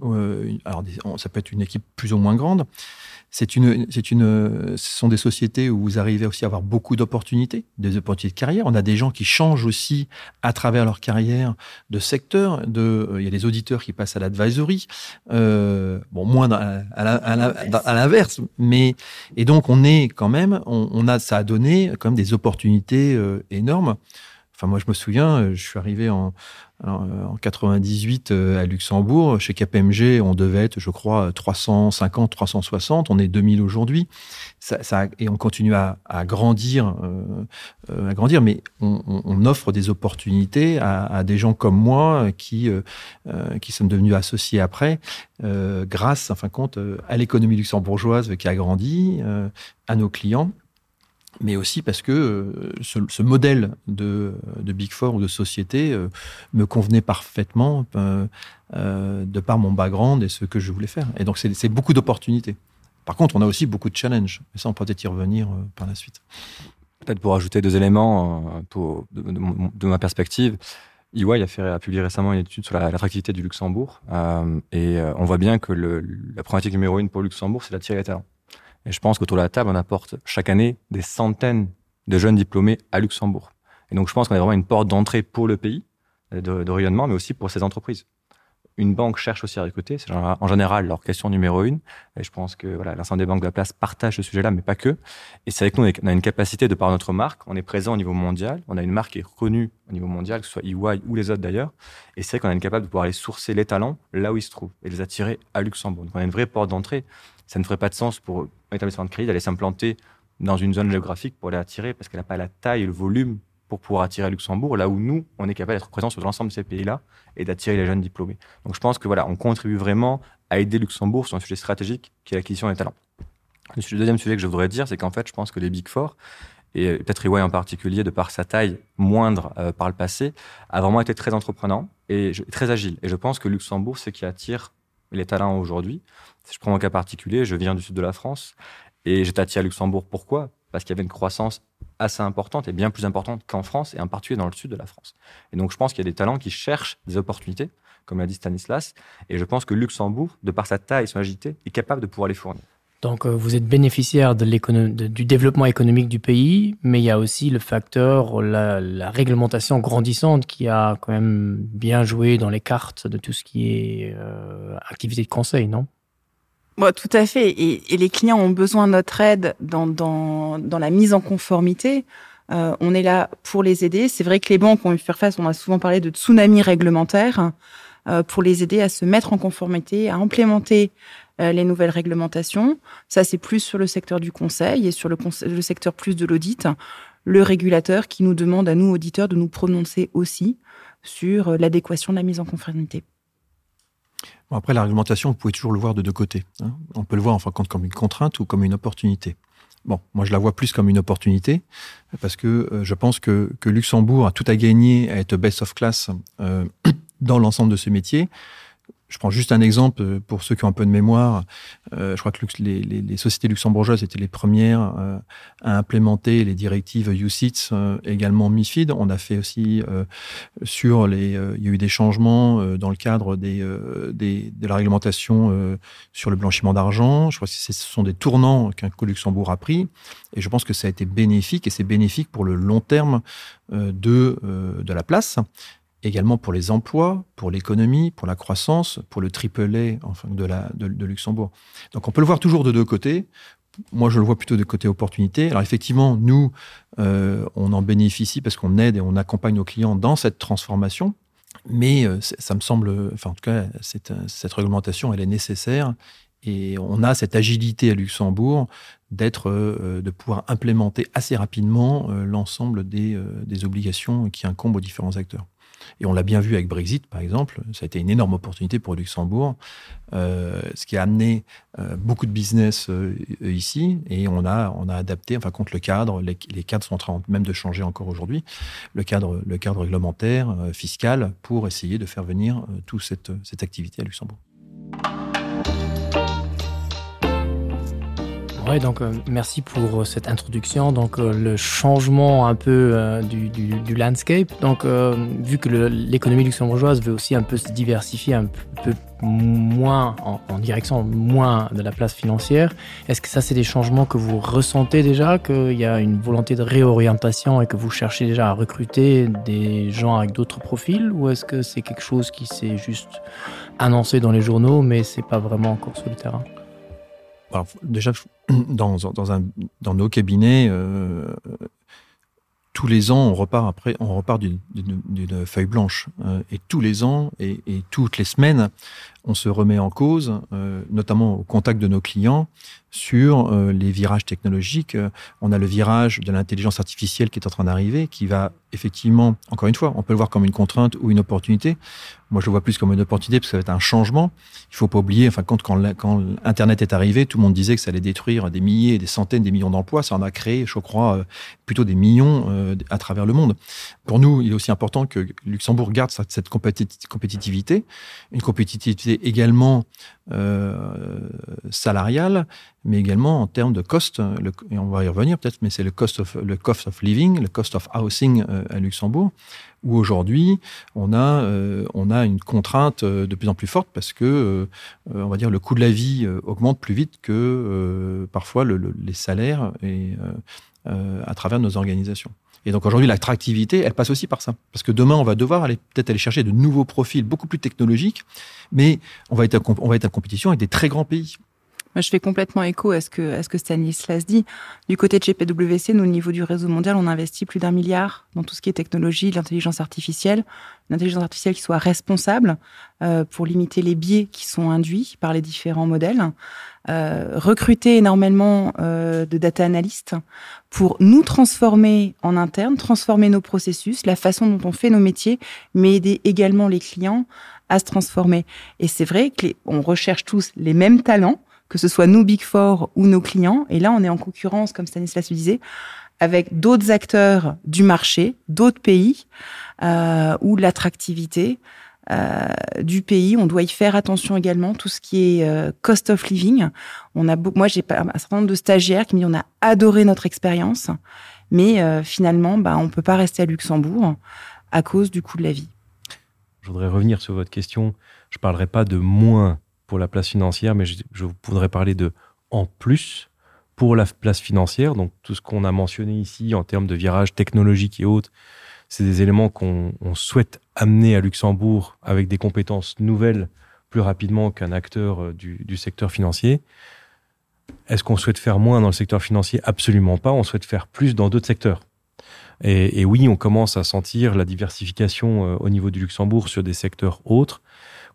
Euh, alors, ça peut être une équipe plus ou moins grande. C'est une, c'est une, ce sont des sociétés où vous arrivez aussi à avoir beaucoup d'opportunités, des opportunités de carrière. On a des gens qui changent aussi à travers leur carrière de secteur. De, euh, il y a des auditeurs qui passent à l'advisory, euh, bon, moins à, à, à l'inverse. Mais, et donc, on est quand même, on, on a, ça a donné quand même des opportunités. opportunités euh, énormes. Enfin, moi, je me souviens, euh, je suis arrivé en, en 98 euh, à Luxembourg. Chez KPMG, on devait être, je crois, 350, 360. On est 2000 aujourd'hui. Ça, ça, et on continue à, à grandir, euh, euh, à grandir, mais on, on, on offre des opportunités à, à des gens comme moi qui, euh, qui sommes devenus associés après, euh, grâce, en fin de compte, à l'économie luxembourgeoise qui a grandi, euh, à nos clients mais aussi parce que euh, ce, ce modèle de, de Big Four ou de société euh, me convenait parfaitement euh, euh, de par mon background et ce que je voulais faire. Et donc c'est beaucoup d'opportunités. Par contre, on a aussi beaucoup de challenges. Et ça, on peut peut-être y revenir euh, par la suite. Peut-être pour ajouter deux éléments euh, pour, de, de, de ma perspective, EY a, fait, a publié récemment une étude sur l'attractivité la, du Luxembourg euh, et euh, on voit bien que le, la problématique numéro une pour Luxembourg, c'est d'attirer les talents. Et je pense qu'autour de la table, on apporte chaque année des centaines de jeunes diplômés à Luxembourg. Et donc je pense qu'on a vraiment une porte d'entrée pour le pays de, de rayonnement, mais aussi pour ces entreprises. Une banque cherche aussi à recruter, c'est en général leur question numéro une. Et je pense que voilà, l'ensemble des banques de la place partagent ce sujet-là, mais pas que. Et c'est vrai que nous, on a une capacité de par notre marque, on est présent au niveau mondial, on a une marque qui est reconnue au niveau mondial, que ce soit EY ou les autres d'ailleurs. Et c'est vrai qu'on est capable de pouvoir aller sourcer les talents là où ils se trouvent et les attirer à Luxembourg. Donc on a une vraie porte d'entrée. Ça ne ferait pas de sens pour un établissement de crédit d'aller s'implanter dans une zone géographique pour les attirer parce qu'elle n'a pas la taille et le volume pour pouvoir attirer Luxembourg, là où nous, on est capable d'être présent sur l'ensemble de ces pays-là et d'attirer les jeunes diplômés. Donc je pense que voilà, on contribue vraiment à aider Luxembourg sur un sujet stratégique qui est l'acquisition des talents. Le deuxième sujet que je voudrais dire, c'est qu'en fait, je pense que les Big Four, et peut-être EY en particulier, de par sa taille moindre euh, par le passé, a vraiment été très entreprenant et je, très agile. Et je pense que Luxembourg, c'est qui attire les talents aujourd'hui. Si je prends mon cas particulier, je viens du sud de la France et j'étais attiré à Luxembourg. Pourquoi Parce qu'il y avait une croissance assez importante et bien plus importante qu'en France et en particulier dans le sud de la France. Et donc je pense qu'il y a des talents qui cherchent des opportunités, comme l'a dit Stanislas, et je pense que Luxembourg, de par sa taille et son agilité, est capable de pouvoir les fournir. Donc euh, vous êtes bénéficiaire de de, du développement économique du pays, mais il y a aussi le facteur la, la réglementation grandissante qui a quand même bien joué dans les cartes de tout ce qui est euh, activité de conseil, non? Bon, tout à fait et, et les clients ont besoin de notre aide dans, dans, dans la mise en conformité. Euh, on est là pour les aider. C'est vrai que les banques ont eu faire face, on a souvent parlé de tsunami réglementaire euh, pour les aider à se mettre en conformité, à implémenter euh, les nouvelles réglementations. Ça, c'est plus sur le secteur du conseil et sur le, conseil, le secteur plus de l'audit, le régulateur qui nous demande à nous, auditeurs, de nous prononcer aussi sur euh, l'adéquation de la mise en conformité. Bon, après, la réglementation, vous pouvez toujours le voir de deux côtés. Hein. On peut le voir en fin de compte comme une contrainte ou comme une opportunité. Bon, moi, je la vois plus comme une opportunité parce que euh, je pense que, que Luxembourg a tout à gagner à être best of class euh, dans l'ensemble de ce métier. Je prends juste un exemple euh, pour ceux qui ont un peu de mémoire. Euh, je crois que les, les, les sociétés luxembourgeoises étaient les premières euh, à implémenter les directives UCITS, euh, également MIFID. On a fait aussi euh, sur les. Euh, il y a eu des changements euh, dans le cadre des, euh, des, de la réglementation euh, sur le blanchiment d'argent. Je crois que ce sont des tournants qu'un coup Luxembourg a pris. Et je pense que ça a été bénéfique et c'est bénéfique pour le long terme euh, de, euh, de la place également pour les emplois, pour l'économie, pour la croissance, pour le triple A enfin, de, la, de, de Luxembourg. Donc on peut le voir toujours de deux côtés. Moi, je le vois plutôt de côté opportunité. Alors effectivement, nous, euh, on en bénéficie parce qu'on aide et on accompagne nos clients dans cette transformation. Mais euh, ça me semble, enfin, en tout cas, cette, cette réglementation, elle est nécessaire. Et on a cette agilité à Luxembourg d'être, euh, de pouvoir implémenter assez rapidement euh, l'ensemble des, euh, des obligations qui incombent aux différents acteurs. Et on l'a bien vu avec Brexit, par exemple, ça a été une énorme opportunité pour Luxembourg, euh, ce qui a amené euh, beaucoup de business euh, ici et on a, on a adapté enfin contre le cadre, les, les cadres sont en train même de changer encore aujourd'hui, le cadre, le cadre réglementaire, euh, fiscal, pour essayer de faire venir euh, toute cette, cette activité à Luxembourg. Ouais, donc euh, merci pour euh, cette introduction donc euh, le changement un peu euh, du, du, du landscape donc euh, vu que l'économie luxembourgeoise veut aussi un peu se diversifier un peu moins en, en direction moins de la place financière est-ce que ça c'est des changements que vous ressentez déjà qu'il y a une volonté de réorientation et que vous cherchez déjà à recruter des gens avec d'autres profils ou est-ce que c'est quelque chose qui s'est juste annoncé dans les journaux mais c'est pas vraiment encore sur le terrain Alors, déjà dans, dans, un, dans nos cabinets, euh, tous les ans, on repart après, on repart d'une feuille blanche. Euh, et tous les ans et, et toutes les semaines, on se remet en cause, euh, notamment au contact de nos clients, sur euh, les virages technologiques. Euh, on a le virage de l'intelligence artificielle qui est en train d'arriver, qui va effectivement, encore une fois, on peut le voir comme une contrainte ou une opportunité. Moi, je le vois plus comme une opportunité parce que ça va être un changement. Il faut pas oublier, enfin, quand, quand, quand Internet est arrivé, tout le monde disait que ça allait détruire des milliers, des centaines, des millions d'emplois. Ça en a créé, je crois, euh, plutôt des millions euh, à travers le monde. Pour nous, il est aussi important que Luxembourg garde cette compétitivité, une compétitivité également euh, salariale, mais également en termes de cost, le, et on va y revenir peut-être, mais c'est le cost of, le cost of living, le cost of housing euh, à Luxembourg, où aujourd'hui on a, euh, on a une contrainte euh, de plus en plus forte parce que euh, euh, on va dire le coût de la vie euh, augmente plus vite que euh, parfois le, le, les salaires et euh, euh, à travers nos organisations. Et donc aujourd'hui, l'attractivité, elle passe aussi par ça. Parce que demain, on va devoir aller peut-être aller chercher de nouveaux profils beaucoup plus technologiques, mais on va être, on va être en compétition avec des très grands pays. Moi, je fais complètement écho à ce que, à ce que Stanislas dit. Du côté de GPWC, nous, au niveau du réseau mondial, on investit plus d'un milliard dans tout ce qui est technologie, l'intelligence artificielle, l'intelligence artificielle qui soit responsable euh, pour limiter les biais qui sont induits par les différents modèles, euh, recruter énormément euh, de data analystes pour nous transformer en interne, transformer nos processus, la façon dont on fait nos métiers, mais aider également les clients à se transformer. Et c'est vrai qu'on recherche tous les mêmes talents, que ce soit nous Big Four ou nos clients. Et là, on est en concurrence, comme Stanislas le disait, avec d'autres acteurs du marché, d'autres pays, euh, où l'attractivité euh, du pays, on doit y faire attention également, tout ce qui est euh, cost of living. On a moi, j'ai un certain nombre de stagiaires qui me disent on a adoré notre expérience, mais euh, finalement, bah, on ne peut pas rester à Luxembourg à cause du coût de la vie. Je voudrais revenir sur votre question. Je ne parlerai pas de moins pour la place financière, mais je, je voudrais parler de en plus pour la place financière. Donc tout ce qu'on a mentionné ici en termes de virage technologique et autres, c'est des éléments qu'on souhaite amener à Luxembourg avec des compétences nouvelles plus rapidement qu'un acteur euh, du, du secteur financier. Est-ce qu'on souhaite faire moins dans le secteur financier Absolument pas. On souhaite faire plus dans d'autres secteurs. Et, et oui, on commence à sentir la diversification euh, au niveau du Luxembourg sur des secteurs autres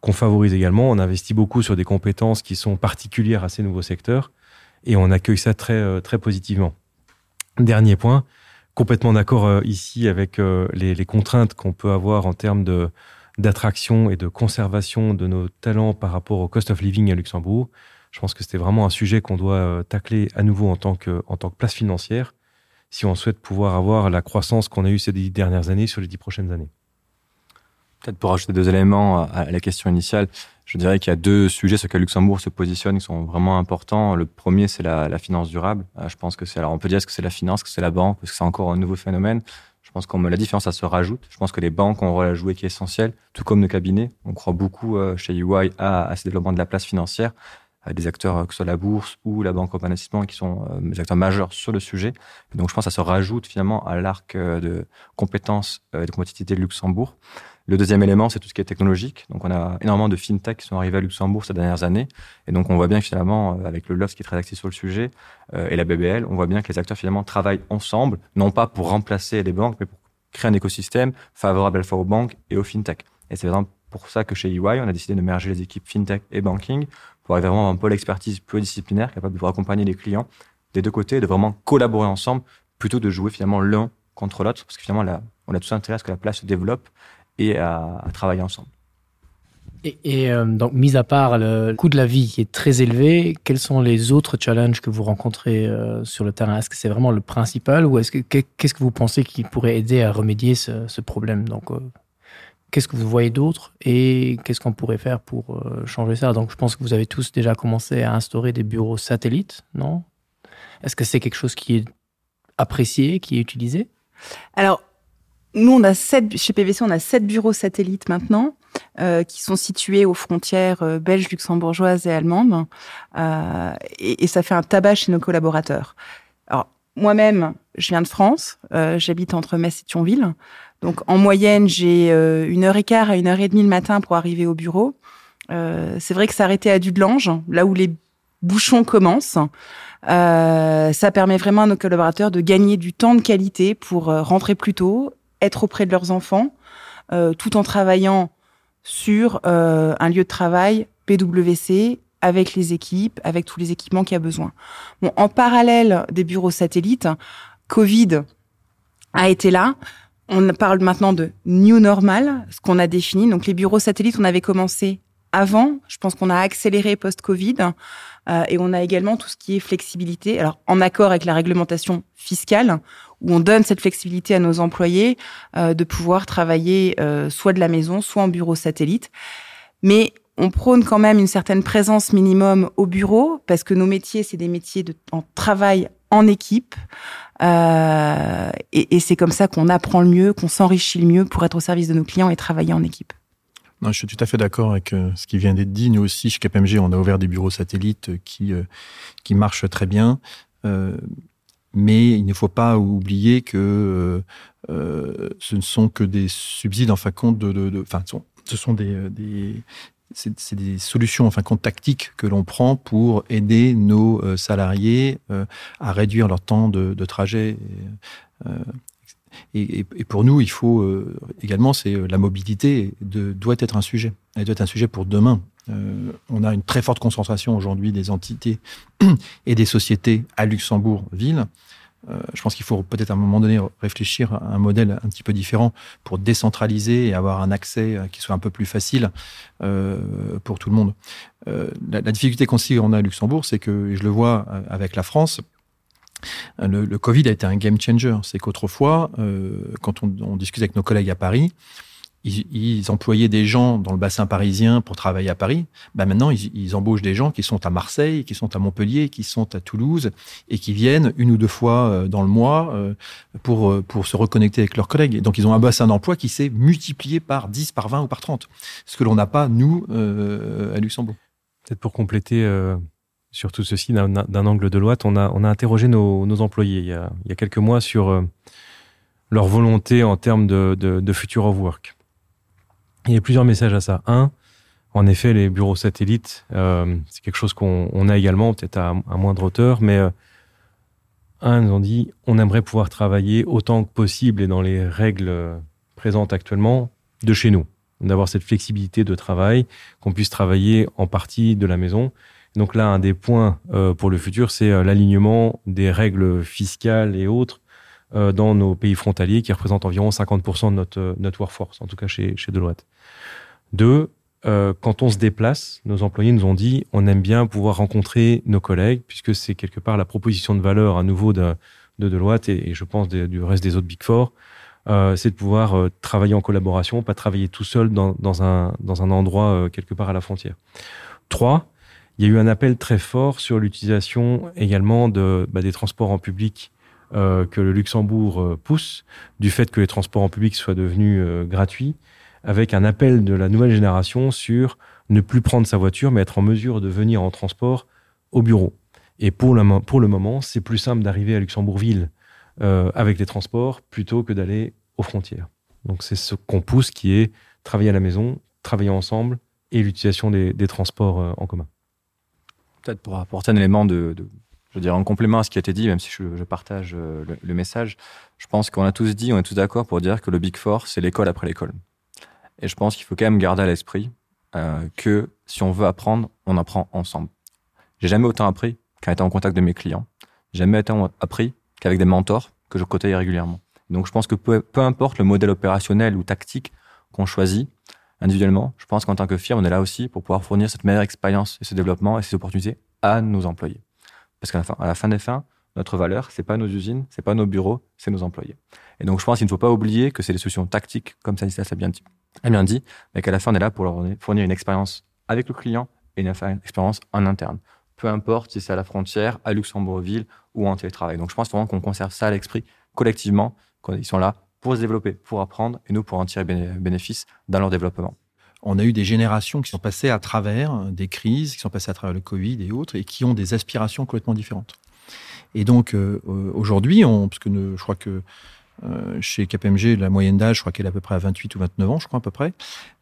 qu'on favorise également. On investit beaucoup sur des compétences qui sont particulières à ces nouveaux secteurs et on accueille ça très, euh, très positivement. Dernier point, complètement d'accord euh, ici avec euh, les, les contraintes qu'on peut avoir en termes de d'attraction et de conservation de nos talents par rapport au cost of living à Luxembourg. Je pense que c'était vraiment un sujet qu'on doit tacler à nouveau en tant que, en tant que place financière si on souhaite pouvoir avoir la croissance qu'on a eue ces dix dernières années sur les dix prochaines années. Peut-être pour ajouter deux éléments à la question initiale, je dirais qu'il y a deux sujets sur lesquels Luxembourg se positionne qui sont vraiment importants. Le premier, c'est la, la finance durable. Euh, je pense que c'est alors on peut dire est-ce que c'est la finance, que c'est la banque, parce que c'est encore un nouveau phénomène. Je pense qu'on la différence, ça se rajoute. Je pense que les banques ont un rôle à jouer qui est essentiel, tout comme nos cabinets. On croit beaucoup euh, chez UI à, à ce développement de la place financière des acteurs euh, que ce soit la bourse ou la banque en investissement qui sont euh, des acteurs majeurs sur le sujet. Et donc je pense que ça se rajoute finalement à l'arc euh, de compétences et de compétitivité de Luxembourg. Le deuxième élément, c'est tout ce qui est technologique. Donc on a énormément de fintech qui sont arrivés à Luxembourg ces dernières années. Et donc on voit bien que finalement, avec le LOFS qui est très axé sur le sujet euh, et la BBL, on voit bien que les acteurs finalement travaillent ensemble, non pas pour remplacer les banques, mais pour créer un écosystème favorable à la fois aux banques et aux fintech. Et c'est exemple pour ça que chez EY, on a décidé de merger les équipes fintech et banking pour avoir vraiment un pôle expertise pluridisciplinaire capable de pouvoir accompagner les clients des deux côtés et de vraiment collaborer ensemble plutôt de jouer finalement l'un contre l'autre parce que finalement là, on a tous intérêt à ce que la place se développe et à, à travailler ensemble. Et, et euh, donc, mis à part le coût de la vie qui est très élevé, quels sont les autres challenges que vous rencontrez euh, sur le terrain Est-ce que c'est vraiment le principal ou est-ce que qu'est-ce que vous pensez qui pourrait aider à remédier ce, ce problème Donc, euh, qu'est-ce que vous voyez d'autre et qu'est-ce qu'on pourrait faire pour euh, changer ça Donc, je pense que vous avez tous déjà commencé à instaurer des bureaux satellites, non Est-ce que c'est quelque chose qui est apprécié, qui est utilisé Alors, nous, on a sept, chez PVC, on a sept bureaux satellites maintenant euh, qui sont situés aux frontières euh, belges, luxembourgeoises et allemandes. Euh, et, et ça fait un tabac chez nos collaborateurs. Alors, moi-même, je viens de France, euh, j'habite entre Metz et Thionville. Donc, en moyenne, j'ai euh, une heure et quart à une heure et demie le matin pour arriver au bureau. Euh, c'est vrai que s'arrêter à Dudelange, là où les bouchons commencent. Euh, ça permet vraiment à nos collaborateurs de gagner du temps de qualité pour euh, rentrer plus tôt, être auprès de leurs enfants, euh, tout en travaillant sur euh, un lieu de travail PwC avec les équipes, avec tous les équipements qu'il y a besoin. Bon, en parallèle des bureaux satellites, Covid a été là. On parle maintenant de new normal, ce qu'on a défini. Donc les bureaux satellites, on avait commencé avant. Je pense qu'on a accéléré post-Covid. Euh, et on a également tout ce qui est flexibilité, alors en accord avec la réglementation fiscale, où on donne cette flexibilité à nos employés euh, de pouvoir travailler euh, soit de la maison, soit en bureau satellite. Mais on prône quand même une certaine présence minimum au bureau, parce que nos métiers, c'est des métiers de, en travail en équipe. Euh, et, et c'est comme ça qu'on apprend le mieux, qu'on s'enrichit le mieux pour être au service de nos clients et travailler en équipe. Non, je suis tout à fait d'accord avec euh, ce qui vient d'être dit. Nous aussi, chez KPMG, on a ouvert des bureaux satellites qui, euh, qui marchent très bien. Euh, mais il ne faut pas oublier que euh, euh, ce ne sont que des subsides en fin de compte de, de, de enfin, ce sont des, euh, des, c'est des solutions en fin de compte tactiques que l'on prend pour aider nos euh, salariés euh, à réduire leur temps de, de trajet. Et, euh, et, et, et pour nous, il faut euh, également c'est euh, la mobilité de, doit être un sujet. Elle doit être un sujet pour demain. Euh, on a une très forte concentration aujourd'hui des entités et des sociétés à Luxembourg-Ville. Euh, je pense qu'il faut peut-être à un moment donné réfléchir à un modèle un petit peu différent pour décentraliser et avoir un accès euh, qui soit un peu plus facile euh, pour tout le monde. Euh, la, la difficulté qu'on on a à Luxembourg, c'est que et je le vois euh, avec la France, le, le Covid a été un game changer. C'est qu'autrefois, euh, quand on, on discute avec nos collègues à Paris, ils, ils employaient des gens dans le bassin parisien pour travailler à Paris. Ben maintenant, ils, ils embauchent des gens qui sont à Marseille, qui sont à Montpellier, qui sont à Toulouse et qui viennent une ou deux fois euh, dans le mois euh, pour, euh, pour se reconnecter avec leurs collègues. Et donc, ils ont un bassin d'emploi qui s'est multiplié par 10, par 20 ou par 30, ce que l'on n'a pas, nous, euh, à Luxembourg. Peut-être pour compléter euh, sur tout ceci d'un angle de Deloitte, on a, on a interrogé nos, nos employés il y a, il y a quelques mois sur euh, leur volonté en termes de, de, de future of work. Il y a plusieurs messages à ça. Un, en effet, les bureaux satellites, euh, c'est quelque chose qu'on a également, peut-être à, à moindre hauteur, mais euh, un, nous ont dit on aimerait pouvoir travailler autant que possible et dans les règles présentes actuellement de chez nous, d'avoir cette flexibilité de travail, qu'on puisse travailler en partie de la maison. Donc là, un des points euh, pour le futur, c'est euh, l'alignement des règles fiscales et autres euh, dans nos pays frontaliers qui représentent environ 50% de notre, euh, notre workforce, en tout cas chez, chez Deloitte. Deux, euh, quand on se déplace, nos employés nous ont dit on aime bien pouvoir rencontrer nos collègues, puisque c'est quelque part la proposition de valeur à nouveau de, de Deloitte et, et je pense des, du reste des autres Big Four, euh, c'est de pouvoir euh, travailler en collaboration, pas travailler tout seul dans, dans, un, dans un endroit euh, quelque part à la frontière. Trois, il y a eu un appel très fort sur l'utilisation également de, bah, des transports en public euh, que le Luxembourg euh, pousse, du fait que les transports en public soient devenus euh, gratuits, avec un appel de la nouvelle génération sur ne plus prendre sa voiture, mais être en mesure de venir en transport au bureau. Et pour le, pour le moment, c'est plus simple d'arriver à Luxembourgville euh, avec les transports plutôt que d'aller aux frontières. Donc c'est ce qu'on pousse qui est travailler à la maison, travailler ensemble et l'utilisation des, des transports euh, en commun. Peut-être pour apporter un élément de, de je veux dire, en complément à ce qui a été dit, même si je, je partage euh, le, le message, je pense qu'on a tous dit, on est tous d'accord pour dire que le Big Four, c'est l'école après l'école. Et je pense qu'il faut quand même garder à l'esprit euh, que si on veut apprendre, on apprend ensemble. J'ai jamais autant appris qu'en étant en contact de mes clients. J'ai jamais autant appris qu'avec des mentors que je côtoyais régulièrement. Donc je pense que peu, peu importe le modèle opérationnel ou tactique qu'on choisit individuellement, je pense qu'en tant que firme, on est là aussi pour pouvoir fournir cette meilleure expérience et ce développement et ces opportunités à nos employés. Parce qu'à la fin, à la fin des fins, notre valeur, c'est pas nos usines, c'est pas nos bureaux, c'est nos employés. Et donc je pense qu'il ne faut pas oublier que c'est des solutions tactiques, comme ça l'a bien dit, a bien dit, mais qu'à la fin, on est là pour leur fournir une expérience avec le client et une expérience en interne. Peu importe si c'est à la frontière, à Luxembourgville ou en télétravail. Donc je pense vraiment qu'on conserve ça à l'esprit collectivement, qu'ils sont là pour se développer, pour apprendre et nous pour en tirer bénéfice dans leur développement. On a eu des générations qui sont passées à travers des crises, qui sont passées à travers le Covid et autres, et qui ont des aspirations complètement différentes. Et donc euh, aujourd'hui, on, parce que ne, je crois que Euh, chez KPMG, la moyenne d'âge, je crois qu'elle est à peu près à 28 ou 29 ans, je crois à peu près.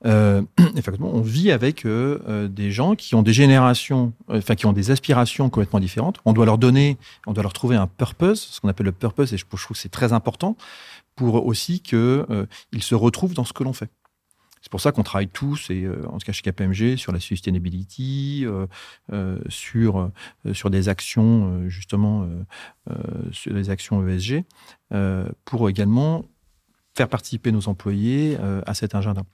Euh, effectivement, on vit avec euh, euh, des gens qui ont des générations, euh, enfin qui ont des aspirations complètement différentes. On doit leur donner, on doit leur trouver un purpose, ce qu'on appelle le purpose, et je, je trouve que c'est très important pour aussi qu'ils euh, se retrouvent dans ce que l'on fait. C'est pour ça qu'on travaille tous, et euh, en tout cas chez KPMG, sur la sustainability, euh, euh, sur, euh, sur des actions, euh, justement, euh, euh, sur des actions ESG, euh, pour également faire participer nos employés euh, à cet agenda.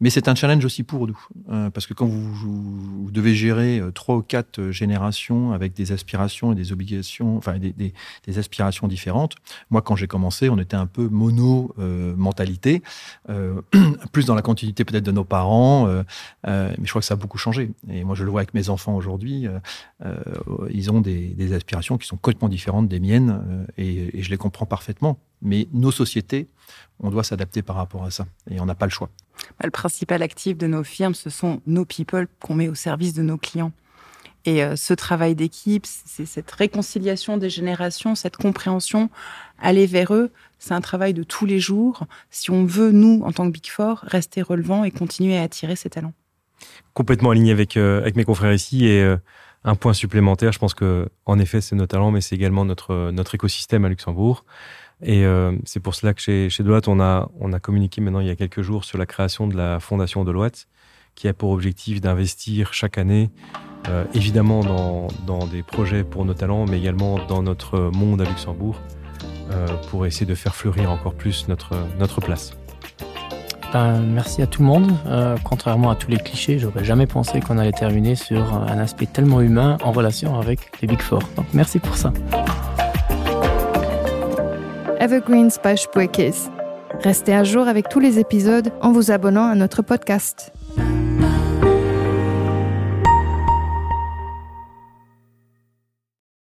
Mais c'est un challenge aussi pour nous, euh, parce que quand vous, vous, vous devez gérer euh, trois ou quatre euh, générations avec des aspirations et des obligations, enfin des, des, des aspirations différentes, moi quand j'ai commencé, on était un peu mono euh, mentalité, euh, plus dans la continuité peut-être de nos parents, euh, euh, mais je crois que ça a beaucoup changé. Et moi je le vois avec mes enfants aujourd'hui, euh, euh, ils ont des, des aspirations qui sont complètement différentes des miennes euh, et, et je les comprends parfaitement. Mais nos sociétés, on doit s'adapter par rapport à ça et on n'a pas le choix. Le principal actif de nos firmes, ce sont nos people qu'on met au service de nos clients. Et euh, ce travail d'équipe, c'est cette réconciliation des générations, cette compréhension, aller vers eux, c'est un travail de tous les jours si on veut, nous, en tant que Big Four, rester relevant et continuer à attirer ces talents. Complètement aligné avec, euh, avec mes confrères ici et euh, un point supplémentaire, je pense que en effet c'est nos talents, mais c'est également notre, notre écosystème à Luxembourg. Et euh, c'est pour cela que chez, chez Deloitte, on a, on a communiqué maintenant il y a quelques jours sur la création de la fondation Deloitte, qui a pour objectif d'investir chaque année, euh, évidemment dans, dans des projets pour nos talents, mais également dans notre monde à Luxembourg, euh, pour essayer de faire fleurir encore plus notre, notre place. Ben, merci à tout le monde. Euh, contrairement à tous les clichés, j'aurais jamais pensé qu'on allait terminer sur un aspect tellement humain en relation avec les Big Four. Donc merci pour ça. Evergreens by Spuerkeess. Restez à jour avec tous les épisodes en vous abonnant à notre podcast.